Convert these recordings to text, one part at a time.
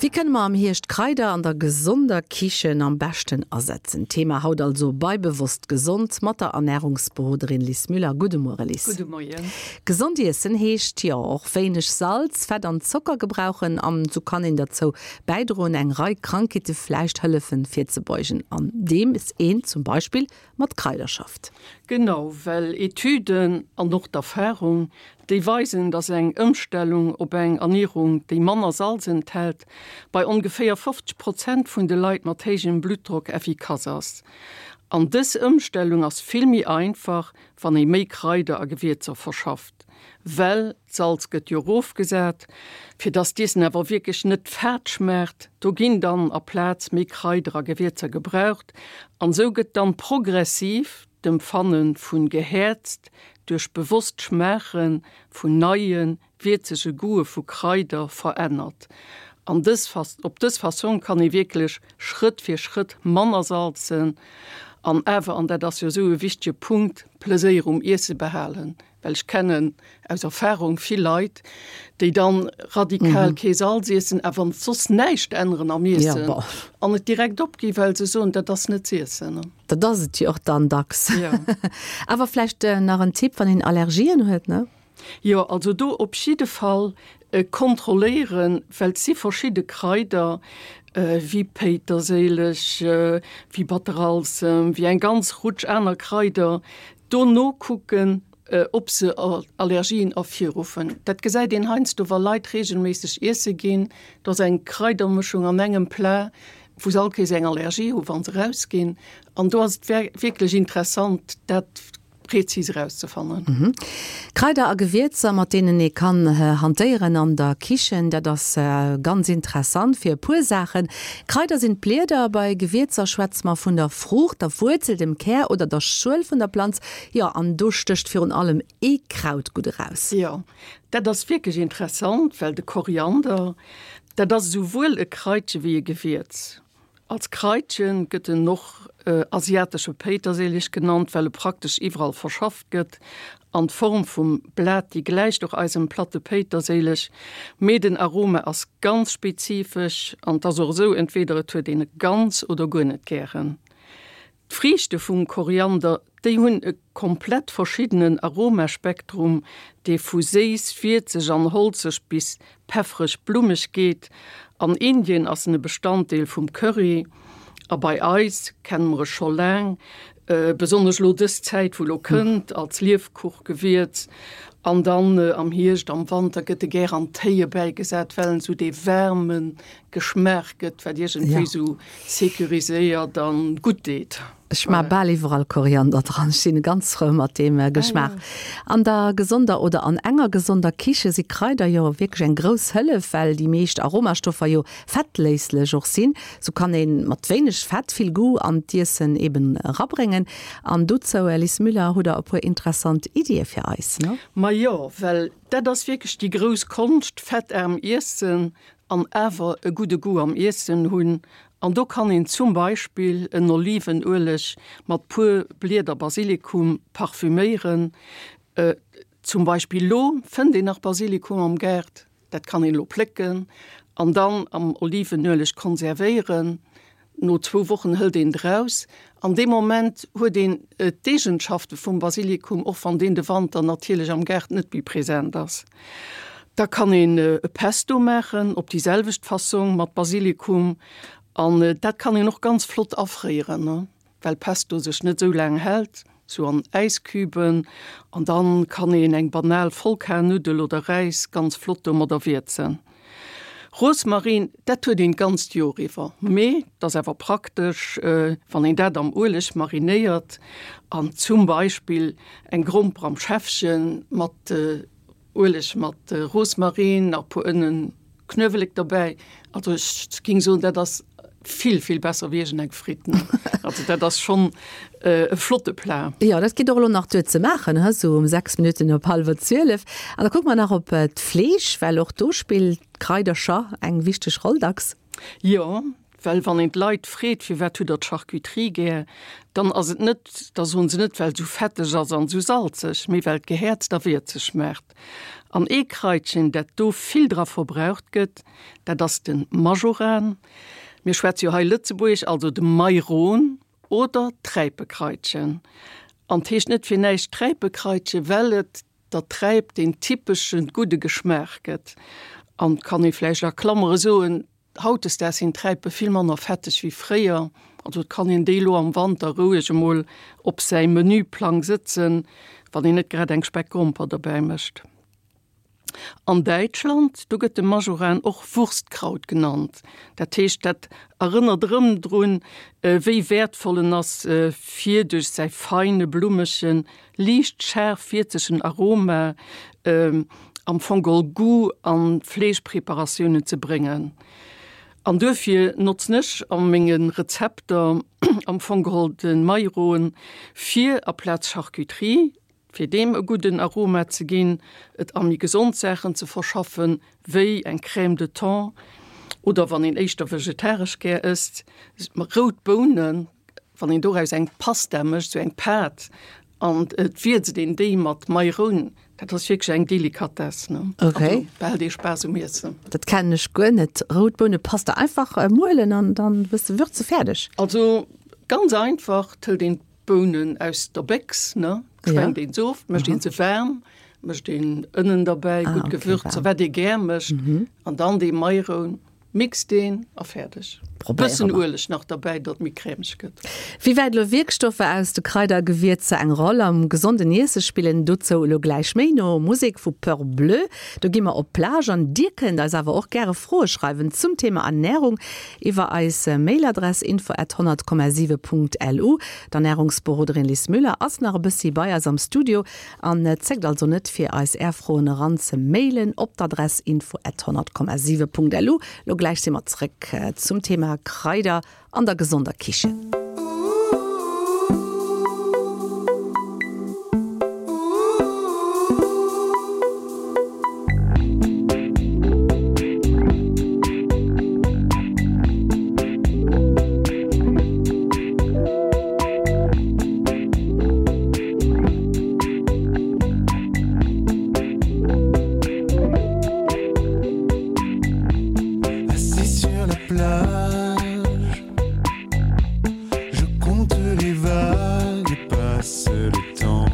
Wéi kënne mer am Hierscht Kraider an der gesonder Kichen am beschten asetzen? Thema haut also bei Bewosst Gesond mat der Ernärungsberoderin Lis Müller. Gudde Muere Lis. Gudde Moien. Gesond iessen heescht jo och wéineg Salz, Fett an Zocker gebrauchen an sou kann een derzou bäidroen eng Rei Krankheete vläicht hëllefen virzebeugen andeems een zum Beispill mat Kraider schafft. Genau, well Etüden an och d'Erfarung, déi weisen, dass eng Ëmstellung op eng Ernierung, déi manner Salz enthält, bei ongeféier 50 Prozent vun de Leit mat héijem Bluttdrock effikass ass. An dës Ëmstellung ass vill méi einfach, wann ee méi Kraider a Gewierzer verschafft, well d'Salz gëtt jo erofgesat, fir dass d'Iessen awer wierklech net fad schmaacht. Do ginn dann aplaz méi Kraider a Gewierzer gebraucht an esou gëtt dann progressiv d'Empfanne vun gehäerzt duerch bewosst Schmaache vun neie wierzege Goûte vu Kraider verännert. An dës op dës Fassong kann ee wierklech Schrëtt fir Schrëtt manner salzen an awer, an dat ass jo esou e wichtege Punkt, Pleséier um Iesse behalen. Well ech kennen aus Erfahrung vill Leit, déi dann radikal kee Salz iessen, awer soss näischt änneren am Iessen an et direkt opginn, well se soen, dat ass net z'iessen. Dat ass et jo och dann dacks. Awer vläicht nach en Tipp, wann een Allergien huet, ne? Jo, also do op jidde Fall kontrolléieren, well et si verschidde Kraider, wéi Péiterséileg, wéi Batteralsem, wéi eng ganz Rutsch aner Kraider, do nokucken, ob se Allergien ervirruffen. Dat gesäit een heiansdo, wa Leit reegelméisseg iesse ginn, do ass eng Kraidermëschung an engem Plat, wou se all Kéiers eng Allergie hu wa se erausginn. An do ass et wierklech interessant, dat prezis erauszefannen. Kraider a Gewierzer, mat deenen ee kann hantéieren an der Kichen, dat ass ganz interessant fir e puer Saachen. Kraider sinn d'Blieder, bei Gewierzer schwätze mer vun der Fruucht, der Wuerzel, dem Kär oder der Schuel vun der Planz. Jo, an do stécht virun allem ee Kraut gutt eraus. Jo, dat ass wierklech interessant, well de Koriander, dat ass esouwuel e Kraitche wéi e Gewierz. Als Kraitchen gëtt en och asiatesche Péiterséileg genannt, well e praktesch iwwerall verschafft gëtt. An d'Form vum Blat, déi gläicht och eisem platte Péiterséileg, mee den Aroma ass ganz spezifesch an 't ass och esou, entweder et huet een e ganz oder guer net gären. D'Friichte vum Koriander, déi hunn e komplett verschiddenen Aromaspektrum, dee vu séiss, wierzeg an holzeg bis peffereg-blummeg geet. An Indien ass en e Bestanddeel vum Curry a bei eis kenne mer e scho laang, besonnesch lo dës Zäit wou lo kënnt, als Liefkuchgewierz. An dann am Hierscht, am Wanter gëtt e gär an Téie bäigesat, well en esou dee waarme Geschmaach gëtt, wat iergendwéi esou sécuriséiert an gutt deet. Ech maa bal iwwerall Koriander dran, ech sinn ganz frou mat deem Geschmaach. An der gesonder oder an enger gesonder Kiche si Kraider jo wierklech eng grouss Hëllef, well déi meescht Aromastoffer jo fettléislech och sinn. Sou kann een mat wéineg Fett vill Goût an d'Iessen eben erabréngen. An dozou, Liz Müller, hutt der e puer interessant Iddie fir eis, ne? Majo, well dat ass wierklech déi grouss Konscht, fettaarm iessen an awer e gudde Goût am Iessen hunn. An do kann een zum Beispill en Olivenueleg mat puer Blieder Basilikum parfüméieren. Zum Beispill lo fënnt een nach Basilikum am Gaart, dat kann een lo plécken an dann am Olivenueleg konservéieren. No zwou Wochen hëlt een et eraus. An deem Moment huet een d'Eegenschafte vum Basilikum, och wann deen de Wanter natierlech am Gaart net méi present ass. Da kann een e Pesto maachen op déi selwecht Fassong mat Basilikum an dat kann een och ganz flott afréieren, well Pesto sech net esou laang hält, sou an Äisküben. An dann kann een eng banal Vollkarnuddel oder Räis ganz flott domadder wierzen. Rosmarin, dat huet een d'ganzt Joer iwwer, mee et ass awer praktesch, wann een dat am Ueleg marinéiert an zum Beispill eng Gromper am Schäffchen mat Ueleg mat Rosmarin, nach puer Ënnen, Knuewelek derbäi. Also ech ging soen, dat ass vill, vill besser wéi iergend eng Fritt. Also dat ass schonn e flotte Plat. Jo, dat geet och elo nach duer ze maachen, he, sou um 6 Minutten op hallwer 12. An da kucke mer nach op d'Fleesch, well och do spillt d'Kraidercher eng wichteg Roll dacks. Jo. Well wann een d'Leit freet, firwat hutt der d'Charcuterie gär, dann ass et net, da soen se net, well et esou fetteg ass an esou salzeg, mee well d'Gehäerzt a wierzeg schmaacht. An ee Kraitchen, dat do vill dra verbraucht gëtt, dat ass de Majoran. Mir schwätze jo hei Lëtzebuergesch, also de Mairon oder d'Träipekraitchen. An 't heescht net fir näischt Träipekraitchen, well et der Träip deen typesche gudde Geschmaach gëtt. An 't kann ee vläicht a Klammere soen, Hautdesdaags sinn d'Träipe vill manner fetteg wéi fréier, also et kann een déi elo am Wanter roueg emol op säi Menüplang sëtzen, wann een net grad eng Speckgromper derbäi mécht. An Däitschland, do gëtt de Majoran och Wurstkraut genannt. Dat heescht, dat erënnert erëm drun, wéi wäertvoll en ass, fir duerch säi feine, blummegen, liicht schaarf wierzegen Aroma am Fong geholl Goût an Fleeschpreparatiounen ze bréngen. An duerfir notzen ech a menge Rezepter am Fong geholl de Majoran fir aplaz Charcuterie, fir deem e gudden Aroma ze ginn, et a méi gesond Saachen ze verschaffen, wéi eng Crème de thon oder wann een éischter vegetaresch gär ësst, rout Bounen. Wann een doraus eng Pasta mécht, sou eng Pâte, an et wierzt een déi mat Mairoun, dat ass wierklech eng Delikatess, ne? Okay. Also behält ee Spaass um Iessen. Dat kennen ech guer net. Rout Bounepasta einfach muelen an dann e bësse würze, fäerdeg. Also ganz einfach, et hëlt een d'Bounen aus der Béchs, ne, schwenkt een se of, mécht een se waarm, mécht een Ënnen derbäi, gutt Gewürzer, wat ee gär mécht, an dann dee Mairoun. Mixt een a fäerdeg. Bëssen Ueleg nach derbäi, datt méi crèmeg gëtt. Wéi wäit elo Wierkstoffer aus de Kraider a Gewierzer eng Roll am gesonden Iesse spillen, dozou elo gläich méi no Musek vu Peur Bleu. Do gi mer op d'Plage an dir kënnt eis awer och gäre Froe schreiwen zum Thema Ernärung iwwer eis Mailadress info at 100,7.lu. D'Ernärungsberoderin Lis Müller ass nach e bëssi bei eis am Studio An zéckt also net fir eis är Froen eran ze mailen op d'Adress info at 100,7.lu. Lo gläich si mer zréck zum Thema Kraider an der gesonder Kichen. Assis sur la plage Je compte les vagues et passe le temps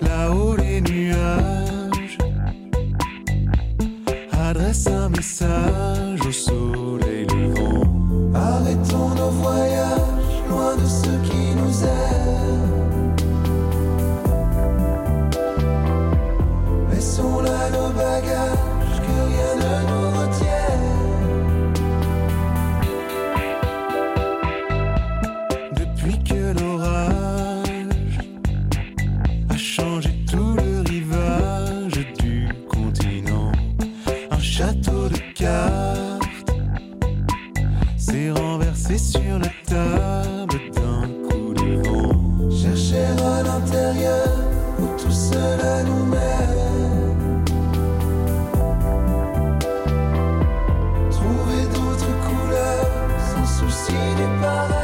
Là-haut les nuages Adresse un message au soleil levant Arrêtons nos voyages loin de ceux qui nous aiment Laissons là nos bagages que rien ne nous retienne Depuis que l'orage a changé tout le rivage du continent un château de cartes s'est renversé sur la table d'un coup de vent chercher à l'intérieur où tout cela nous mène trouver d'autres couleurs sans souci du pareil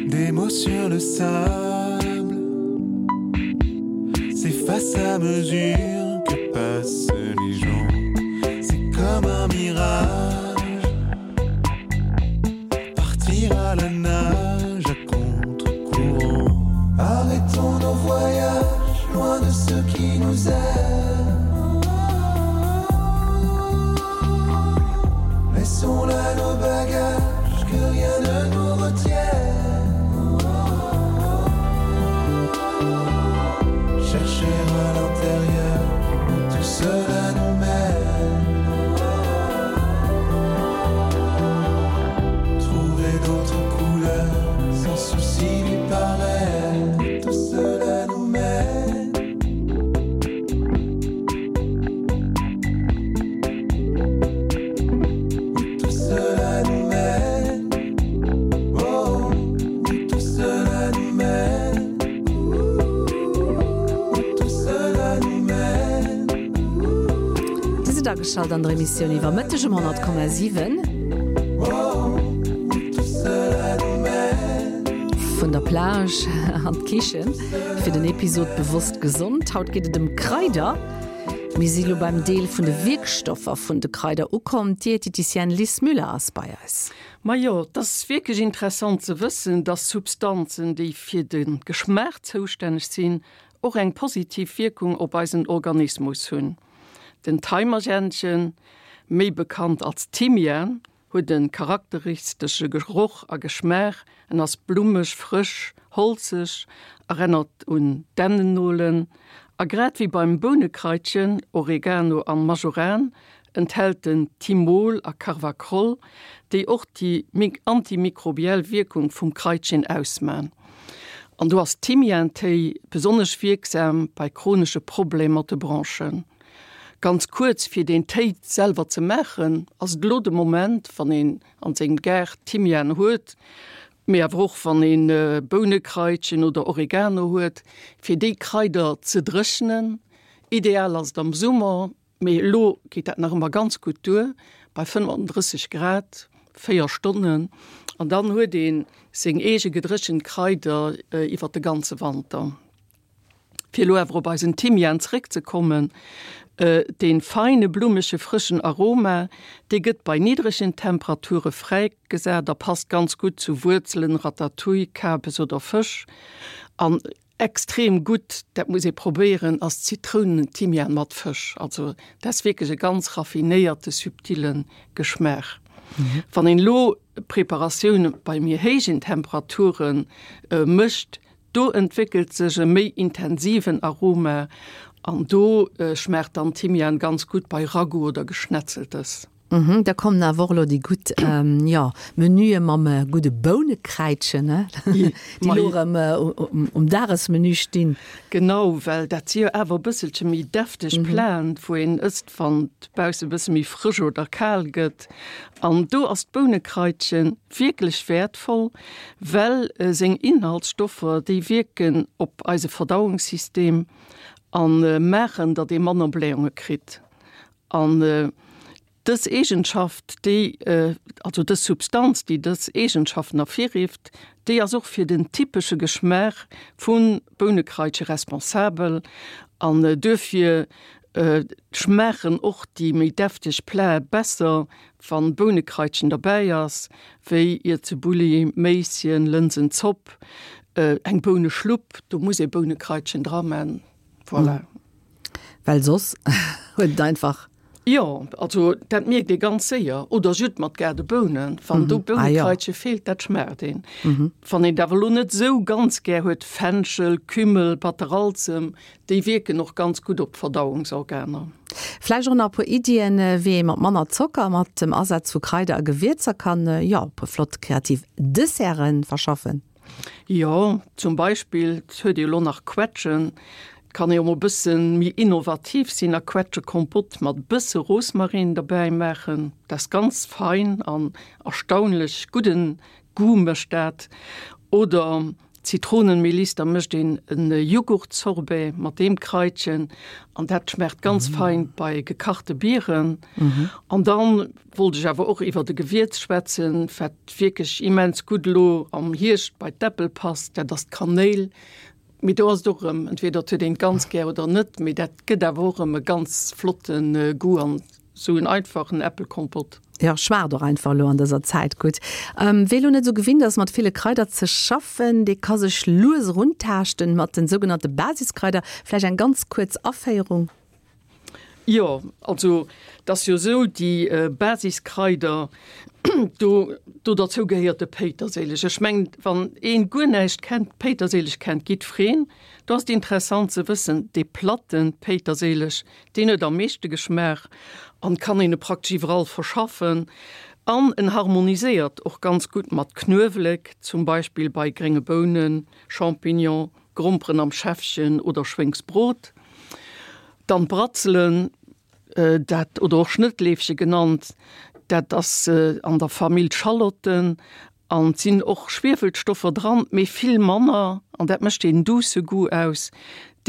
Des mots sur le sable S'efface à mesure que passent les gens C'est comme un mirage Partir à la nage à contre-courant Arrêtons nos voyages loin de ceux qui nous aiment Laissons là nos bagages que rien ne nous retienne Chercher à l'intérieur où tout cela nous mène Trouver d'autres couleurs sans souci du paraître Tout cela nous mène Où tout cela nous mène oh, oh. Ageschalt an der Emissioun iwwer Mëtteg um 100,7. Vun der Plage an d'Kichen fir den Episod Bewosst gesond. Haut geet et ëm Kraider. Mir si lo beim Deel vun de Wierkstoffer vun de Kraider ukomm. D'Dieteticienne Lis Müller ass bei eis. Majo, et ass wierklech interessant ze wëssen, dass Substanzen, déi fir de Geschmaach zoustänneg sinn, och eng positiv Wierkung op eisen Organismus hunn. Den Thaimergännchen, méi bekannt als Thymian, huet e charakteristesche Geroch a Geschmaach, en ass blummeg, frësch, holzeg, erennert un Dännennolen a grad wéi beim Bounewkraitchen, Oregano an Majoran, enthält en Thymol a Carvacrol, déi och déi antimikrobiell Wierkung vum Kraitchen ausman. An do ass Thymiantéi besonnesch wierksam bei chronesche Problemer mat de Bronchen. Ganz kuerz, fir deen Téi selwer ze maachen, ass et elo de Moment, wann een an sengem Gaart Thymian huet, mee awer och wann een Bounewkraitchen oder Oregano huet, fir déi Kraider ze dréchnen. Ideal ass et am Summer, Mee elo geet dat nach ëmmer ganz gutt duer, bei 35 Grad, 4 Stonnen, an dann huet ee seng eege gedréchent Kraider iwwer de ganze Wanter. Fir elo awer op eisen Thymian zeréckzekommen, dee feine blummege frëschen Aroma, dee gëtt bei niddregen Temperature fräigesat a passt ganz gutt zu Wuerzelen, Ratatouille, Kabes oder Fësch. An Extrem gutt, dat muss ee probéieren, ass Zitrounenthymian mat Fësch. Also dat ass wierklech e ganz raffinéierte, subtile Geschmaach. Wann een elo Preparatioune bei méi héijen Temperature mécht, do entwéckelt sech e méi intensiven Aroma an do schmaacht dann Thymian ganz gutt bei Ragout oder Geschnetzeltes. Mhm, da kommen awer och elo déi gutt, jo, Menüe mam gudde Bounekräitchen, ne? Déi elo erëm um Dagesmenü stinn. Genau, well dat si jo awer e bësselche méi defteg Platen, wou een ësst, wann et bausse e bësse méi frësch oder kal gëtt. An do ass d'Bounekräitche wierklech wäertvoll, well seng Inhaltsstoffer, déi wierken op eise Verdauungssystem a maachen, datt ee manner Blähunge kritt. An dës Eegenschaft, déi, also dës Substanz, déi dës Eegenschaften ervirrifft, déi ass och fir den typesche Geschmaach vu Bounekraitche responsabel. An duerfir schmaachen och déi méi defteg Plae besser, wann Bounekraitchen derbäi ass, wéi Iertsebulli, Méisschen, Lënsenzopp, eng Bouneschlupp, do muss ee Bounekraitchen dra man. Voilà. Well soss huet et einfach. Jo, also dat mierkt ee ganz séier. Oder Judd mat Gaardebounen, wann do Bounekraitche feelt, dat schmaacht een. Wann een et awer elo net esou ganz gär huet, Fenchel, Kümmel, Batteralzem, déi wierken och ganz gutt op d'Verdauungsorganer. Vläicht och nach e puer Iddien, wéi ee mat manner Zocker, mat dem Asaz vu Kraider a Gewierzer kann, jo, e puer flott kreativ Desserten verschaffen. Jo, zum Beispill, et huet ee jo elo nach Quetschen, et kann ee jo mol e bësse méi innovativ sinn a Quetschekompott mat e bësse Rosmarin derbäi maachen. Dat ass ganz fein an erstaunlech gudden Goût mécht dat. Oder Zitronenmeliss, da mécht een e Jughurtsorbet mat deem Kraitchen an dat schmaacht ganz fein bei gekachte Bieren. An dann Wollt ech awer och iwwert e Gewierz schwätzen, wat wierklech immens gutt elo am Hierscht bei d'Äppel passt, dat ass d'Kanéil. Mee do ass et och erëm, entweder et huet een et ganz gär oder net, mee dat gëtt awer och erëm e ganz flotte Goût an esou en einfachen Äppelkompott. Jo, schmaacht och einfach elo an dëser Zäit gutt. Wee elo net esou gewinnt ass mat ville Kraider ze schaffen, dee ka sech lues eruntaaschten mat den sougenannte Basiskraider. Vläicht eng ganz kuerz Aféierung? Jo, also et ass jo esou, déi Basiskraider, do do derzou gehéiert de Péiterséileg. Ech mengen, wann een guer näischt kennt, Péiterséileg kennt jiddwereen. Do ass et interessant ze wëssen, dee platte Péiterséileg, deen huet am meeschte Geschmaach an kann een e praktesch iwwerall verschaffen. An en harmoniséiert och ganz gutt mat Knuewelek, zum Beispill bei grénge Bounen, Champignon, Gromperen am Schäffchen oder Schwéngsbrot. Dann d'Bratzelen, dat oder och Schnëttleefche genannt, dat ass an der Famill Schalotten an et sinn och Schwiefelstoffer dran, mee vill manner an dat mécht deen duusse Goût aus.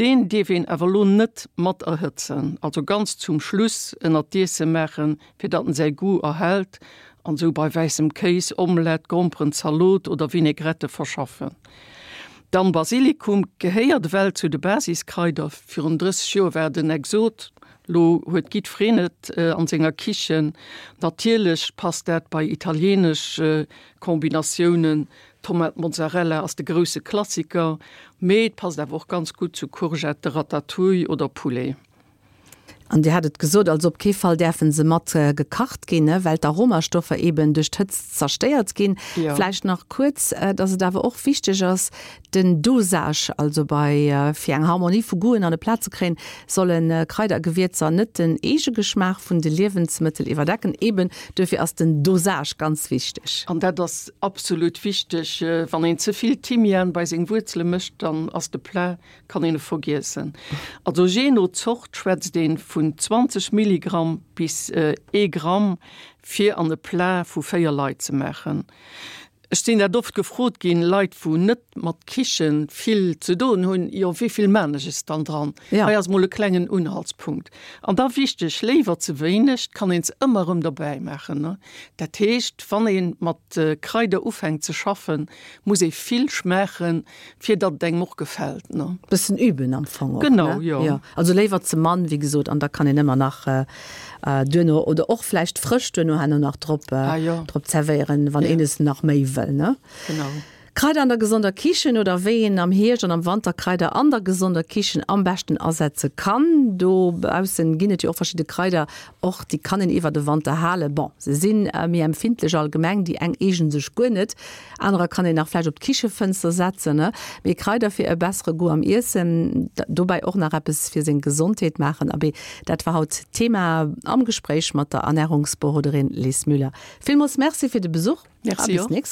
Deen dierf een awer lo net mat erhëtzen, also ganz zum Schluss ënnert d'Iesse maachen, fir datt en säi Goût erhält an sou bei wäissem Kéis, Omelette, Gromperen, Zalot oder Vinaigrette verschaffen. Dann Basilikum gehéiert ewell zu de Basiskraider. Virun 30 Joer war et en Exot, lo huet giddfereen et an senger Kichen. Natierlech passt dat bei italienesch Kombinatiounen, Tomat Mozzarella ass de grousse Klassiker, mee et passt awer och ganz gutt zu Courgette, Ratatouille oder Poulet. An Dir hat et gesot, also op kee Fall däerfe se mat gekacht ginn, well d'Aromastoffer eeben duerch d'Hëtzt zerstéiert ginn. Vläicht nach kuerz, dass et awer och wichteg ass, den Dosage, also bei, fir eng Harmonie vu Goûten an e Plat ze kréien, solle Kraider a Gewierzer net den Eegegeschmaach vun de Liewensmëttel iwwerdecken. Eeben duerfir ass den Dosage ganz wichteg. An dat ass absolut wichteg. Wann een ze vill Thymian bei seng Wuerzele mécht, dann ass de Plat Kann een e vergiessen. Also jee no Zort schwätzt een vun 20 Milligramm bis ee Gramm fir an e Plat vu 4 Leit ze maachen. Ech sinn dat oft gefrot ginn, Leit wou net mat Kichen vill ze doen hunn, jo wéivill maan ech es dann dran? Hei ass mol e klengen Unhaltspunkt. An da wichteg, léiwer ze wéineg, 't kann een se ëmmer erëm derbäi maachen. Dat heescht wann een mat Kraider ufänkt ze schaffen, muss ee vill schmaachen, fir datt et engem och gefält, ne? Bëssen üben am Fong och, ne? Genau, jo. Jo, also léiwer ze mann, wéi gesot, an da kann een ëmmer nach duerno oder och vläicht frësch duerno herno nach drop, ah, jo. drop zerwéieren, wann een es nach méi wëll, ne? Genau. Kraider an der gesonder Kichen oder wéi een am Hierscht an am Wanter Kraider an der gesonder Kichen am beschten asetze kann. Dobaussen ginn et jo och verschidde Kraider, och déi kann een iwwer de Wanter halen. Bon, se si méi empfindlech allgemeng, déi eng eegnen sech guer net. Anerer kann een nach vläicht op d'Kichefënster setzen, ne? Mee Kraider fir e bessere Goût am Iessen, dobäi och nach eppes fir seng Gesondheet maachen, abee, dat war haut d'Thema am Gespréich mat der Ernärungsberoderin Liz Müller. Villmools Merci fir de Besuch a bis nächst.